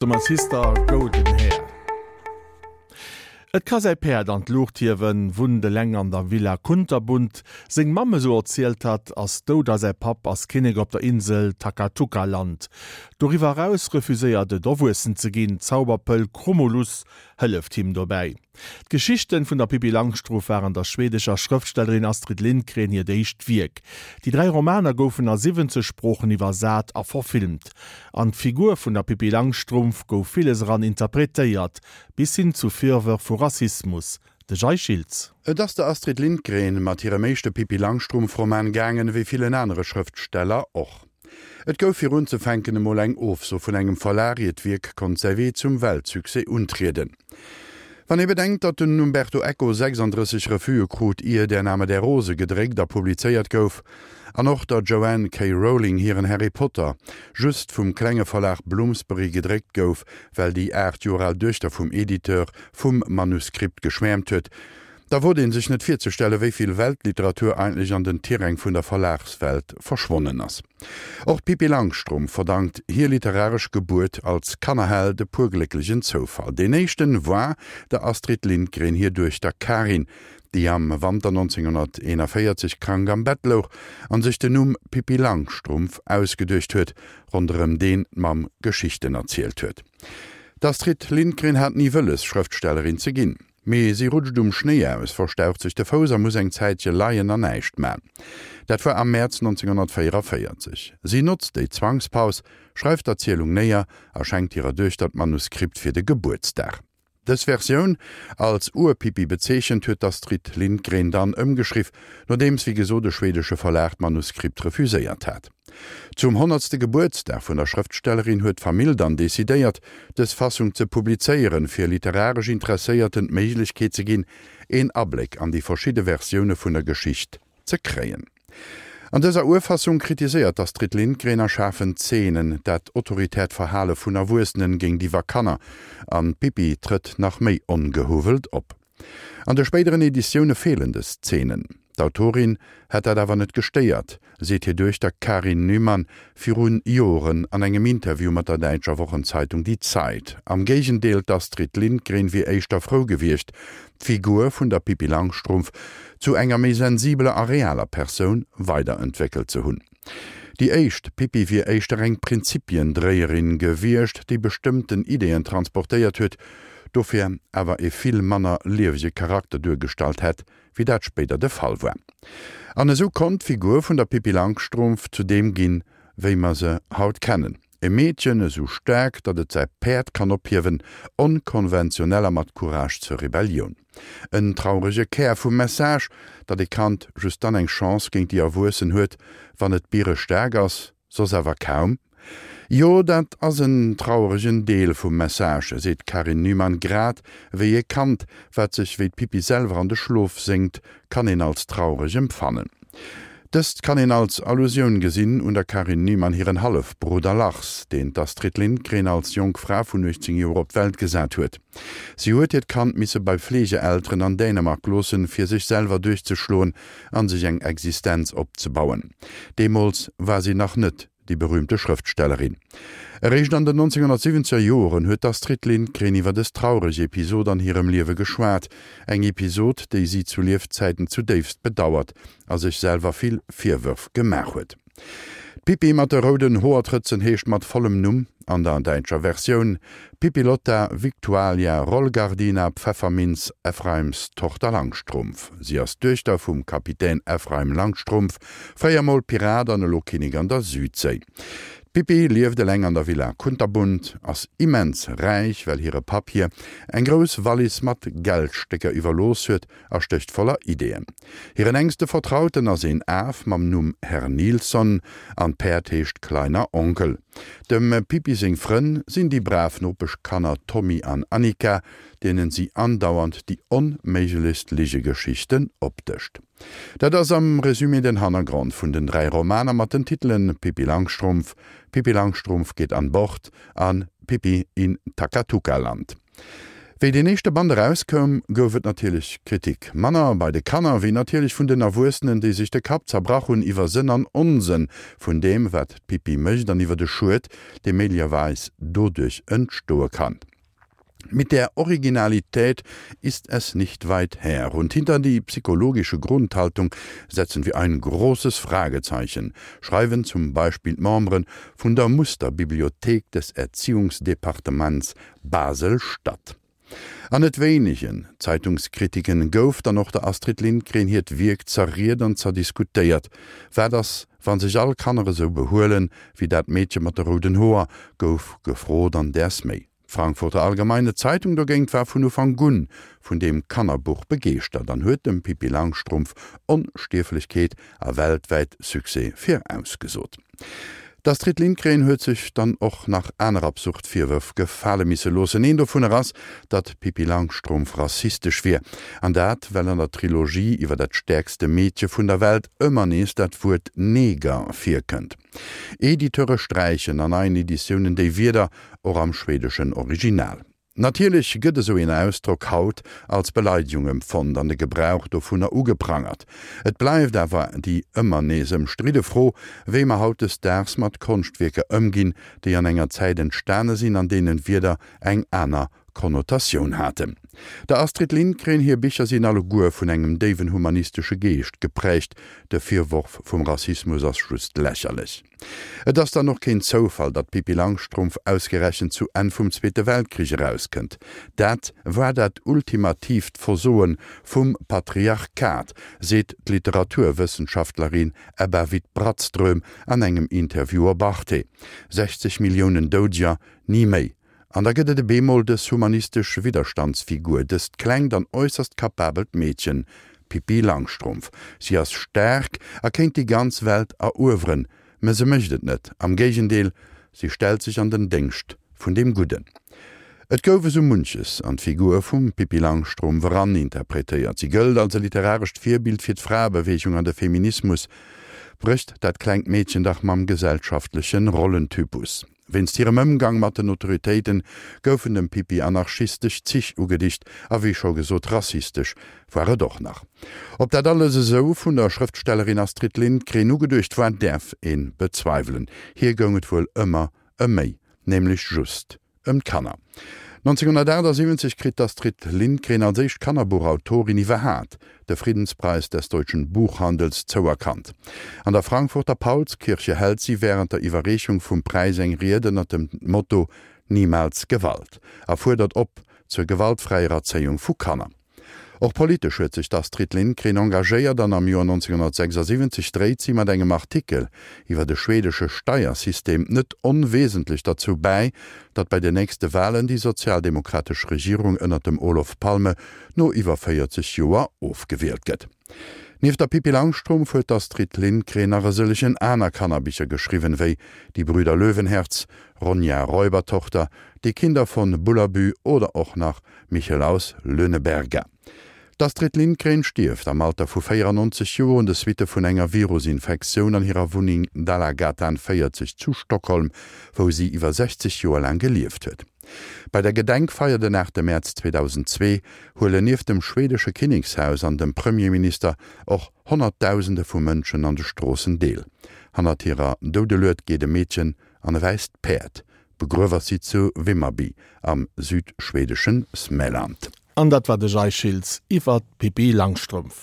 To my sister golden hair. Et ka säi Päerd an d'Luucht hiewen, wunnt eleng an der Villa Kunterbunt. Seng Mamm, esou erzielt hatt, ass dout a säi Papp ass Kinnek op der Insel Takatuka-Land. Doriwwer eraus refuséiert et erwuessen ze ginn. D'Zauberpëll Krumulus hëlleft him dobäi. D'Geschichten vun der Pippi Langstrumpf waren der schwedescher Schrëftstellerin Astrid Lindgren hiert éischt Wierk. Déi 3 Romaner goufen a 70 Sproochen iwwersat a verfilmt. An d'Figur vun der Pippi Langstrumpf gouf villes eran interpretéiert, bis hin zu Virwërf vu Rassismus. De Jay Schiltz. Et ass der Astrid Lindgren mat hirem éischte Pippi Langstrumpf-Roman gaangen, wéi villen anere Schrëftsteller och. Et gouf fir unzefänken emol eng Ofso vun engem Verlag, ier d'Wierk konnt säi Wee zum Weltsuccès untrieden. Wann ee bedenkt, datt den Umberto Eco 36 Refuse krut, ier Der Name der Rose gedréckt a publizéiert gouf, an och der Joanne K. Rowling hiren Harry Potter just vum klenge Verlag Bloomsbury gedréckt gouf, well déi 8 Joer al Duechter vum Editeur vum Manuskript geschwäermt huet, Da wot een sech net virzestellen, wéi vill Weltliteratur eigentlech an den Tiräng vun der Verlagswelt verschwonnen ass. Och d'Pippi Langstrumpf verdankt hir literaresch Gebuert als Kannerheld e puer glécklegen Zoufall. Deen éischten war der Astrid Lindgren hir Duechter Karin, déi am Wanter 1941 krank am Bett louch an sech den Numm Pippi Langstrumpf ausgeduecht huet, ronderëm deen d'Mamm Geschichten erzielt huet. D'Astrid Lindgren hat ni wëlles, Schrëftstellerin ze ginn. Mee si rutscht um Schnéi aus, verstaucht sech de Fouss a muss eng Zäitche leien an näischt man. Dat war am Mäerz 1944. Si notzt déi Zwangspaus, schreift d'Erzielung néier a schenkt hirer Duechter d'Manuskript fir de Gebuertsdag. Dës Versioun, als Ur-Pippi bezeechent, huet d'Astrid Lindgren dann ëmgeschriff, nodeems wéi gesot e schwedesche Verlag d'Manuskript refuséiert hat. Zum honnertste Gebuertsdag vun der Schrëftstellerin huet d'Famill dann decidéiert, dës Fassung ze publizéieren, fir literaresch Interesséierten d'Méiglechkeet ze ginn, een Abléck an déi verschidde Versioune vun der Geschicht ze kréien. An dëser Urfassung kritiséiert d'Astrid Lindgren a schaarfen Zeenen dat autoritäert Verhale vun Erwuessenen géintiwwer Kanner, an d'Pippi trëtt nach méi ongehuwwelt op. An de spéideren Editioune feelen dës Zeenen. D'Autorin hätt dat awer net gestéiert, seet hir Duechter Karin Nyman viru Joren an engem Interview mat der däitscher Wochenzeitung Die Zeit. Am Géigendeel, d'Astrid Lindgren wier éischter frou gewiescht, d'Figur vun der Pippi Langstrumpf zu enger méi sensibeler a realer Persoun weiderentwéckelt ze hunn. Déi éischt Pippi wier éischter eng Prinzipiendréierin gewiescht, déi bestëmmten Ideeën transportéiert huet, dofir awer e vill manner liewege Charakter duergestallt hätt, wéi dat spéider de Fall war. An esou konnt d'Figur vun der Pippi Langstrumpf zu deem ginn, wéi mer se haut kennen, E Meedchen esou staark, datt et säi Päerd kann ophiewen, onkonventionell a mat Courage zur Rebellioun. En traurege Kär vum Message, datt e Kand just dann eng Chance géint déi Erwuessen huet, wann et bierestaark ass, soss awer kaum. Jo, dat ass en traueregen Deel vum Message, seet d'Karin Nyman, grad wéi e Kand, wat sech wéi d'Pippi selwer an de Schlof séngt, kann een als traureg empfannen. Dëst kann een als Allusioun gesinn un der Karin Nyman hiren Hallefbrudder Lars, deen d'Astrid Lindgren als jonk Fra vun 18 Joer op d'Welt gesat huet. Si huet hiert Kand misse bei Fleegeelteren an Dänemark loossen, fir sech selwer duerchzeschloen an sech eng Existenz opzebauen. Deemools war si nach net déi berüümte Schrëftstellerin. Eréischt an den 1970er Joren huet d'Astrid Lindgren iwwer dës traureg Episod an hirem Liewe geschwat, eng Episod, déi si zu Liefzäiten zudéifst bedauert a sech selwer vill Virwërf gemaach huet. D'Pippi mat de rouden Hoertrëtzen heescht mat vollem Numm an der däitscher Versioun Pippilotta Victualia Rollgardina Pfefferminz Ephraims Tochter Langstrumpf. Si ass d'Duechter vum Kapitän Ephraim Langstrumpf, fréier mol Pirat an elo Kinnek an der Südséi. D'Pippi lieft eleng an der Villa Kunterbunt, ass immens räich, well hire Papp hir eng grouss Wallis mat Geldstécker iwwerlooss huet a stécht voller Ideeën. Hiren enkste Vertrauten ass een Af mam Numm Herr Nilsson an d'Päerd heescht Kleiner Onkel. Dem Pippi seng Frënn sinn déi brav Nopeschkanner Tommy an Annika, deenen si andauernd déi onméiglechst Ligegeschichten opdëscht. Dat ass am Resumé den Hannergrond vun den 3 Romaner mat den Titelen Pippi Langstrumpf, Pippi Langstrumpf geht an Bord an Pippi in Takatuka-Land. Wéi deen éischte Band erauskoum, gouf et natierlech Kritik. Manner bei de Kanner, wéi natierlech vun den Erwuessenen, déi sech de Kapp zerbrach hunn iwwer Sënn an Onsënn vun deem, wat d'Pippi mécht an iwwer de Schued, dee méiglecherweis doduerch entstoe kann. Mit der Originalität ist es nicht weit her und hinter die psychologische Grundhaltung setzen wir ein großes Fragezeichen, schreiwen zum Beispill d'Membere vun der Musterbibliothek des Erziehungsdepartements Basel-Stadt. An net wéinegen Zeitungskritiken gouf dann och der Astrid Lindgren hiert Wierk zerriet an zerdiskutéiert. Wat ass, wa sech all Kanner esou behuelen, wéi dat Meedche mat de rouden Hoer, gouf gefrot an däers méi. D'Frankfurter Allgemeine Zeitung dogéint war vun Ufank un vun deem Kannerbuch begeeschtert an huet dem Pippi Langstrumpf Onstierflechkeet a weltwäit Succès virausgesot. D'Astrid Lindgren huet sech dann och nach aner absurd Virwërf gefale misse loossen. Een dovunner ass, datt d'Pippi Langstrumpf rassistesch wier. An dat, well an der Trilogie iwwer dat stäerkste Meedche vun der Welt ëmmer nees dat Wuert Neger virkënnt. Editeure sträichen an neien Editiounen déi Wierder, och am schwedeschen Original. Natierlech gëtt esou een Ausdrock haut als Beleidegung empfonnt an de Gebrauch dovunner ugeprangert. Et bleift awer déi ëmmer nees ëmstridde Fro, wéi mer hautdesdaags mat Konschtwierker ëmginn, déi an enger Zäit entstane sinn, an deenen Wierder eng aner Konnotatioun haten. Der Astrid Lindgren hir Bicher sinn alleguer vun engem déiwen humanistesche Geescht geprägt, de Virworf vum Rassismus ass just lächerlech. Et ass dann och keen Zoufall, datt d'Pippi Langstrumpf ausgerechent zu Enn vum Zweete Weltkrich erauskënnt. Dat war dat ultimatiivt Versoe vum Patriarchat, seet d'Literaturwëssenschaftlerin Ebba Witt-Brattström an engem Interview op Arte. 60 Milliounen Doudeger, ni méi. An da gëtt et e bemol dës humanistesch Widderstandsfigur, dëst klengt an äusserst kapabelt Meedchen, d'Pippi Langstrumpf. Si ass staark a kéint déi ganz Welt erueweren, mä se mécht et net. Am Géigendeel, si stellt sech an den Déngscht vun deem Gudden. Et gouf esou munches an d'Figur vum Pippi Langstrumpf eraninterpretéiert. Si gëllt als e literarescht Virbild fir d'Fraebeweegung an de Feminismus. Brécht dat klengt Meedchen dach mam gesellschaftleche Rollentypus. Wéinst hirem Ëmgang mat den Autoritéiten goufen dem Pippi anarchistesch Zich ugedicht a wéi scho gesot rassistesch war et och nach. Ob dat alles esou vun der Schrëftstellerin Astrid Lindgren ugeduecht war, däerf ee bezweiwelen. Hir goung et wuel ëmmer ëm méi, nämlech just ëm d'Kanner. 1978 kritt d'Astrid Lindgren als éischt Kannerbuchautorin iwwerhaat de Friedenspreis des deutschen Buchhandels zouerkannt. An der Frankfurter Paulskirche hält si wärend der Iwwerreechung vum Präis eng Ried ënnert dem Motto Niemals Gewalt a fuerdert op zur gewaltfräier Erzéiung vu Kanner. Och politesch huet sech d'Astrid Lindgren engagéiert an am Joer 1976 dréit si mat engem Artikel iwwer de schwedesche Steiersystem net onwesentlech derzou bäi, datt bei den nächste Walen déi sozialdemokratesch Regierung ënnert dem Olof Palme no iwwer 40 Joer ofgewielt gëtt. Nieft der Pippi Langstrumpf huet d'Astrid Lindgren nach e sëllegen aner Kannerbicher geschriwwen, wéi Die Brüder Löwenherz, Ronja Räubertochter, Die Kinder von Bullerbü oder och nach Michel aus Lönneberga. D'Astrid Lindgren stierft am Alter vu 94 Joer un de Suitte vun enger Virusinfektioun an hirer Wunneng Dalagatan 40 zu Stockholm, wou si iwwer 60 Joer laang gelieft huet. Bei der Gedenkfeier den 8 Mäerz 2002 huelen nieft dem schwedesche Kinnekshaus an dem Premierminister och Honnertdausende vu Mënschen an de Stroossen deel. Hannert hirer Doudelued geet e Meedchen an e wäisst Päerd. Begruew ass si zu Vimmerby am südschwedeschen Smäland. An dat war de Jay Schiltz iwwer d'Pippi Langstrumpf.